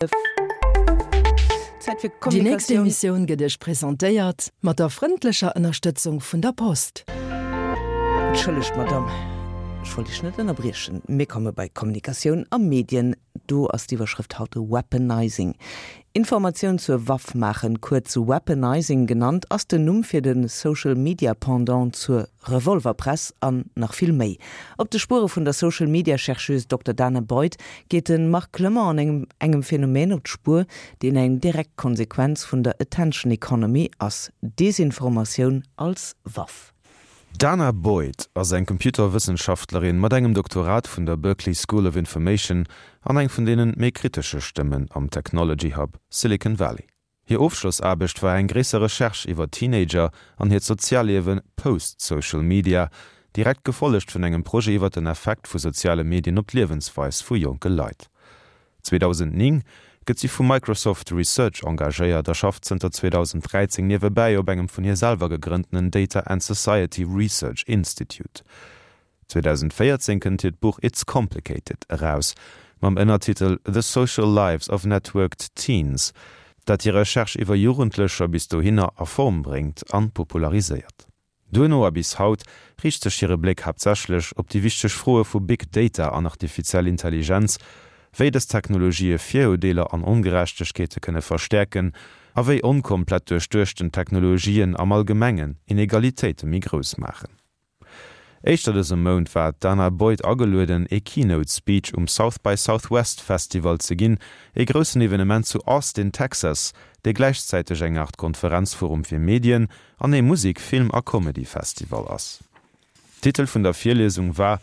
Zäit fir Déi nächst Kommunikatioun. Emissioun gëtt Iech presentéiert mat der frëndlecher Ënnerstëtzung vun der Post. Entschëllegt, Madamm, ech wollt Iech net ënnerbriechen. Mir komme bei Kommunikatioun a Medien. Do ass d'Iwwerschrëft haut Weaponizing. Informatioun zur Waff maachen, kuerz Weaponizing genannt, ass den Numm fir de Social-Media-Pendant zur Revolverpress an nach vill méi. Op de Spuere vun der Social Media Chercheuse Dokter Dana Boyd geet de Marc Clement an engem engem Phänomen op d'Spuer, deen eng direkt Konsequenz vun der Attention Economy ass, Desinformatioun als Waff. D'Dana Boyd ass eng Computerwëssenschaftlerin mat engem Doktorat vun der Berkeley School of Information an eng vun deenen méi kritesche Stëmmen am Technology Hub Silicon Valley. Hir Ofschlossaarbecht war eng gréisser Recherche iwwer Teenager an hiert Sozialliewe post Social Media, direkt gefollegt vun engem Projet iwwer den Effekt vu soziale Medien op d'Liewensweis vu jonke Leit. 2009 gëtt si vu Microsoft Research engagéiert a schafft zënter 2013 niewebäi op engem vun hir selwer gegrënntenen Data and Society Research Institute. 2014 kënnt hiert Buch It's Complicated eraus, mam Ënnertitel The Social Lives of Networked Teens, dat hir Recherche iwwer Jugendlecher bis dohinner a Form bréngt an populariséiert. Duerno a bis haut riicht sech hire Bléck haaptsächlech op déi wichteg Froe vu Big Data an artifiziell Intelligenz, wéi dës Technologië Virurdeeler an Ongerechtegkeete kënne verstäerken a wéi onkomplett duerchduechten Technologien am Allgemengen Inegalitéite méi grouss maachen. Éischter dëse Mount war d'Danah Boyd agelueden, ee Keynote Speech um South by Southwest Festival ze ginn, ee groussen Evenement zu Austin, Texas, dee gläichzäiteg eng Aart Konferenzforum fir Medien an ee Musek-, Film a Comedy-Festival ass. Titel vun der Virliesung war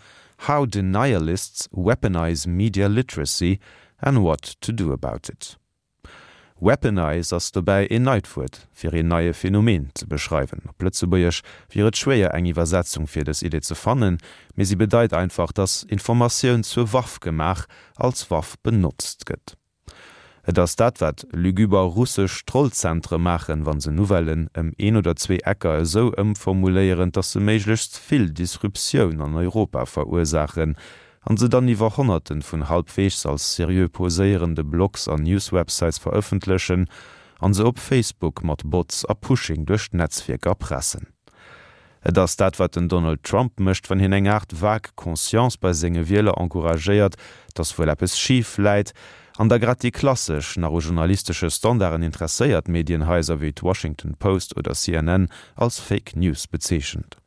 How Denialists Weaponize Media Literacy and What to Do About It. Weaponize ass dobäi een neit Wuert, fir een neie Phänomen ze beschreiwen. Op Lëtzebuergesch wier et schwéier, eng Iwwersetzung fir dës Idee ze fannen, mee si bedeit einfach, dass Informatioun zur Waff gemaach, als Waff benotzt gëtt. Et ass dat, wat lügüber russesch Trollzentre maachen, wa se Nouvellen ëm een oder zwee Ecker esou ëmformuléieren, dass se méiglechst vill Disruptioun an Europa verursaachen, an se dann iwwer Honnerten vun halbweegs als seriö poséierende Blogs an Newswebsites verëffentlechen an se op Facebook mat Bots a Pushing duerch d'Netzwierker pressen. Et ass dat wat den Donald Trump mécht wann hien eng Aart vague Conscience bei senge Wieler encouragéiert, dass wuel eppes schif läit, an da grad déi klassesch, nach u journalistesche Standarden interesséiert Medienhaiser wéi d'Washington Post oder CNN als Fake News bezeechent.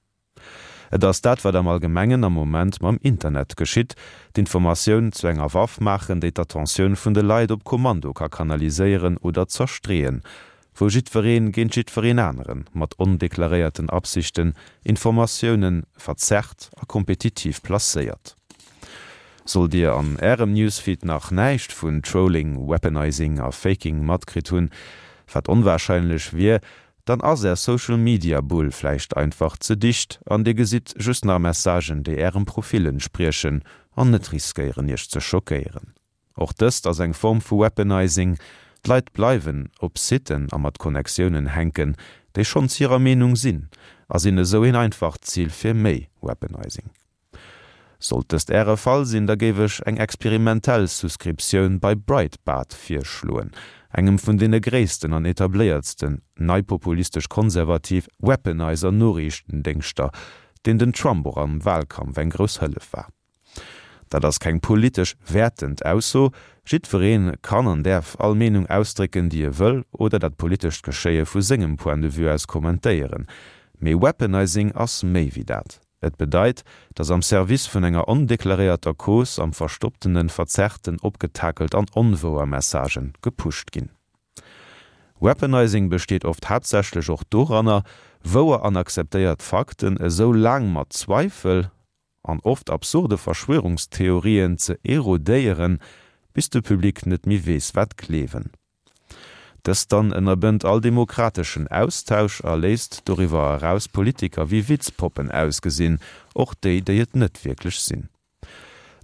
Et ass dat, wat am Allgemengen am Moment mam Internet geschitt, d'Informatioun zu enger Waff maachen, déi d'Attentioun vun de Leit op Kommando ka kanaliséieren oder zerstreeën, wou jiddweree géint jiddwereen anere mat ondeklaréierten Absichten Informatioune verzerrt a kompetitiv placéiert. Sollt Dir an Ärem Newsfeed nach näischt vun Trolling, Weaponizing a Faking matkritt hunn, wat onwarscheinlech wier, Dann ass är Social Media Bull vläicht einfach ze dicht an dir gesitt just nach Messagen déi ärem Profil entspriechen an net riskéieren iech ze schockéieren. Och dëst ass eng Form vu Weaponizing, d'Leit bleiwen op Siten a mat Connectiounen hänken déi schonns hirer Meenung sinn a sinn esou een einfacht Zil fir méi Weaponizing. Sollt dëst Äre Fall sinn, da géif ech eng experimentell Souscriptioun bei Breitbart virschloen, engem vun deene gréissten an etabléiertsten neipopulistesch-konservativ Weaponizer-Noriichtendéngschter, deen den Trump och am Wahlkampf eng grouss Hëllef war. Dat ass keng politesch wäertend Ausso, jiddweree kann an däerf all Meenung ausdrécken, déi e wëll, oder dat politescht Geschéie vu sengem Point de vue aus kommentéieren, mee Weaponizing ass méi wéi dat. Et bedeit, datt am Service vun enger ondeklaréierter Cause am Verstopptenen verzerrten, opgetakelt an onwouer Messagen gepusht ginn. Weaponizing besteet oft haaptsächlech och doranner, wouer an akzeptéiert Fakten esou laang mat Zweifel an oft absurde Verschwörungstheorien ze erodéieren, bis de Public net méi weess wat gleewen. Dëst dann ënnerbënnt all demokrateschen Austausch a léisst doriwwer eraus Politiker wéi Witzpoppen ausgesinn, och déi, déi et net wierklech sinn.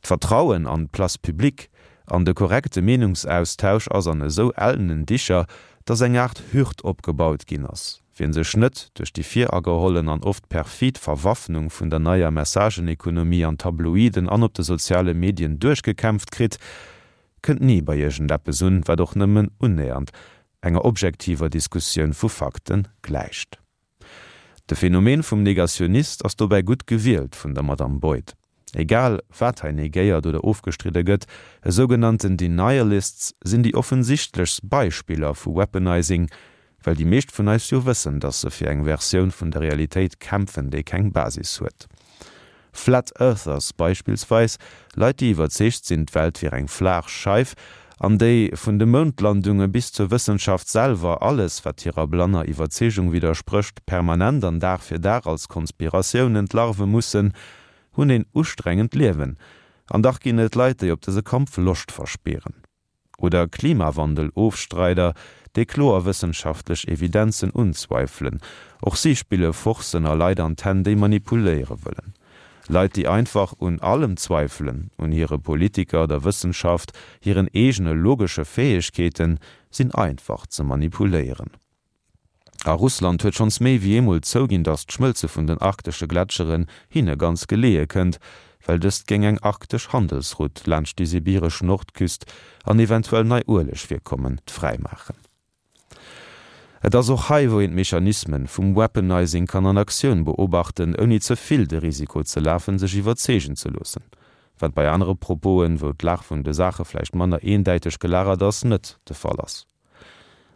D'Vertrauen an d'Place publique, an de korrekte Meenungsaustausch ass an esou ellenen Dicher, dass eng Aart Hürd opgebaut ginn ass. Wien sech net duerch déi viragehollen an oft perfid Verwaffnung vun der neier Messagenekonomie an Tabloiden an op de soziale Medien duerchgekämpft kritt, kënnt ni bei iergendeppes un, wat och nëmmen unnähernd enger objektiver Diskussioun vu Fakte gläicht. De Phänomen vum Negationist ass dobäi gutt gewielt vun der Madame Boyd. Egal wat hei negéiert oder ofgestridde gëtt, esougenannten Denialists sinn déi offensichtlechst Beispiller vu Weaponizing, well déi meescht vun eis jo wëssen, dass se fir eng Versioun vun der Realitéit kämpfen, déi keng Basis huet. Flat Earthers beispillsweis, Leit déi iwwerzeegt sinn, d'Welt wier eng flaach Scheif, an déi, vun de Moundlandunge bis zur Wëssenschaft selwer, alles wat hirer blanner Iwwerzeegung widdersprécht, permanent an Dag fir Dag als Konspiratioun entlarve mussen, hunn een ustrengend Liewen. An dach ginn et Leit, déi op dëse Kampf Loscht verspieren. Oder Klimawandel-Ofstreider, déi kloer wëssenschaftlech Evidenzen unzweifelen. Och si spille Forcen a Leit an d'Hänn, déi manipuléiere wëllen. Leit, déi einfach un allem zweifelen, un hire Politiker, der Wëssenschaft, hiren eegene logesche Fäegkeeten, sinn einfach ze manipuléieren. A Russland huet schonns méi wéi eemol zouginn, datt d'Schmëlze vun den arktesche Gletscheren hinne ganz geleeë kënnt, well dëst géing eng arktesch Handelsroute laanscht déi sibiresch Nordküst an eventuell nei Uelegvirkommen fräimaachen. Et ass och hei, wou een d'Mechanismen vum Weaponizing kann an Aktioun beobachten, ouni ze vill de Risiko ze lafen, sech iwwerzeegen ze loossen, wat bei anere Proposen, wou d'Lag vun de Saache vläicht manner eendäiteg gelagert ass, net de Fall ass.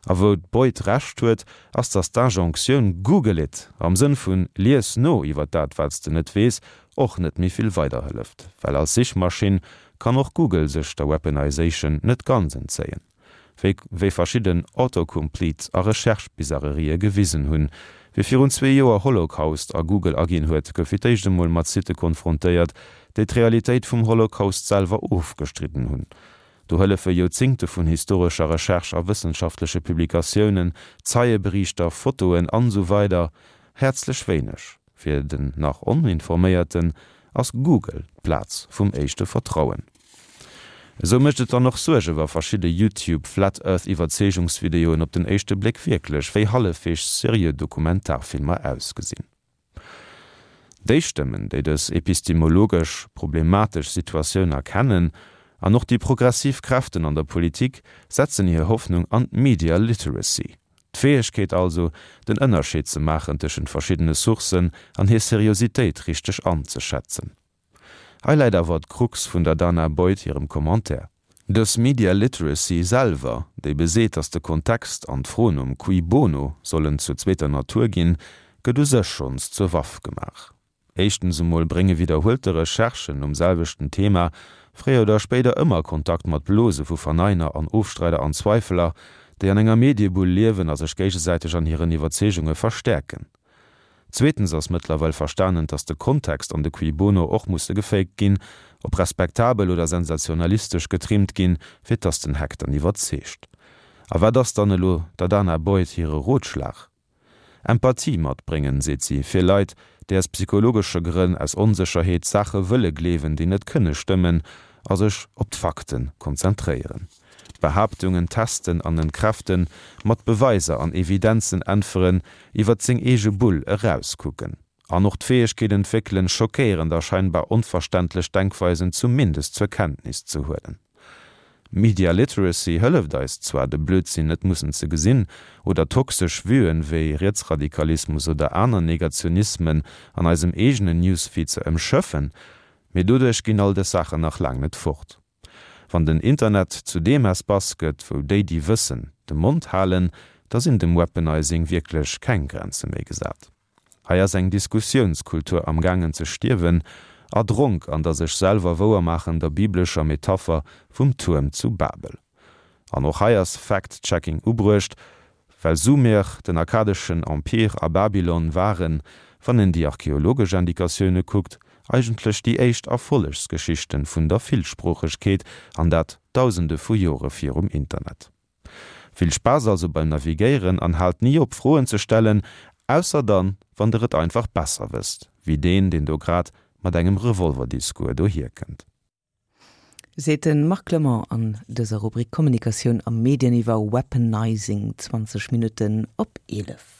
A wou d'Boyd Recht huet, ass datt d'Injonctioun Google it! am Sënn vun lies no iwwer dat wat s de net weess och net méi vill weiderhëlleft, well als Sichmaschinn kann och Google sech der Weaponization net ganz entzéien, wéi wéi verschidden Autocompletes a Recherche-Bizarrerië gewisen hunn. Wie virun zwee Joer Holocaust a Google aginn huet, gouf fir d'éischt emol mat Sitte konfrontéiert, déi d'Realitéit vum Holocaust selwer ofgestridden hunn. Do hëllefe Joerzingte vun historescher Recherche a wëssenschaftleche Publikatiounen, Zeieberiichter, Fotoen an esou weider häerzlech wéineg. Fir den nach Oninforméierten ass Google d'Plaz vum éischte Vertrauen. Esou mécht et dann och Suerge wa verschidde YouTube Flat Earth Iwwerzeegungsvideoen op den éischte Bléck wierklech wéi hallefweegs seriö Dokumentarfilmer ausgesinn. Déi Stëmmen, déi dës epistemologesch problematesch Situatioun erkennen, an och déi progressiv Kräften an der Politik, setzen hir Hoffnung an d'Media Literacy, d'Fäegkeet also, den Ënnerscheed ze maachen tëschent verschiddene Sourcen an hir Seriositéit richteg anzeschätzen. Hei läit awer d'Krux vun der Dana Boyd hirem Commentaire. Dës Media Literacy selwer, déi beseet, datt de Kontext an d'Fro nom Cui bono sollen zur zweeter Natur ginn, gëtt u sech schonns zur Waff gemaach. Éischtens emol brénge widderhuelte Recherchen nom selwechten Thema fréier oder spéider ëmmer Kontakt mat Blose vu Verneiner an Ofstreider an Zweifeler, déi an enger Mediebull liewen a sech géigesäiteg an hiren Iwwerzeegunge verstäerken. Zweetens ass mëttlerweil verstanen, dass de Kontext an de Cui bono och musse gefaked ginn, op respektabel oder sensationalistesch getrimmt ginn, fir dass den Hack dann iwwerzeegt. A wat ass dann elo der Dana Boyd hire Rotschlag? Empathie matbréngen, seet si, fir Leit, déi aus psychologesche Grënn, aus Onsécherheet, Saache wëlle gleewen, déi net kënne stëmmen, a sech op d'Fakte konzentréieren. Behaaptungen testen an entkräften, mat Beweiser an Evidenzen äntweren, iwwert seng eege Bull erauskucken. An och d'Fäegkeet entwéckelen, schockéierend a scheinbar onverständlech Denkweisen zumindest zur Kenntnis ze huelen. Media Literacy hëlleft eis zwar, de Blödsinn net mussen ze gesinn, oder toxesch Vuen wéi Rietsradikalismus oder aner Negationismen an eisem eegenen Newsfeed ze ëmschëffen, mee doduerch ginn all dës Saachen nach laang net fort. Wann den Internet zu deem Espace gëtt, wou déi, déi wëssen, de Mond halen, da sinn dem Weaponizing wierklech keng Grenze méi gesat. Hei ass eng Diskussiounskultur amgaangen ze stierwen, erdronk an der sech selwer wouermaachender biblescher Metapher vum Tuerm zu Babel. An och hei ass Fact-Checking ubruecht, Well Sumer, den akkadeschen Empire a Babylon waren, wann een déi archeologesch Indikatioune kuckt, eigentlech déi éischt Erfollegsgeschichten vun der Villsproochegkeet, an dat dausende vu Jore virum Internet. Vill Spaass also beim Navigéieren an haalt ni op Froen ze stellen, ausser dann, wann der et einfach besser wësst, wéi deen, deen do grad mat engem Revolverdiscours dohierkënnt. Seet de Marc Clement an dëser Rubrik Kommunikatioun a Medien iwwer Weaponizing, 20 Minutten op 11.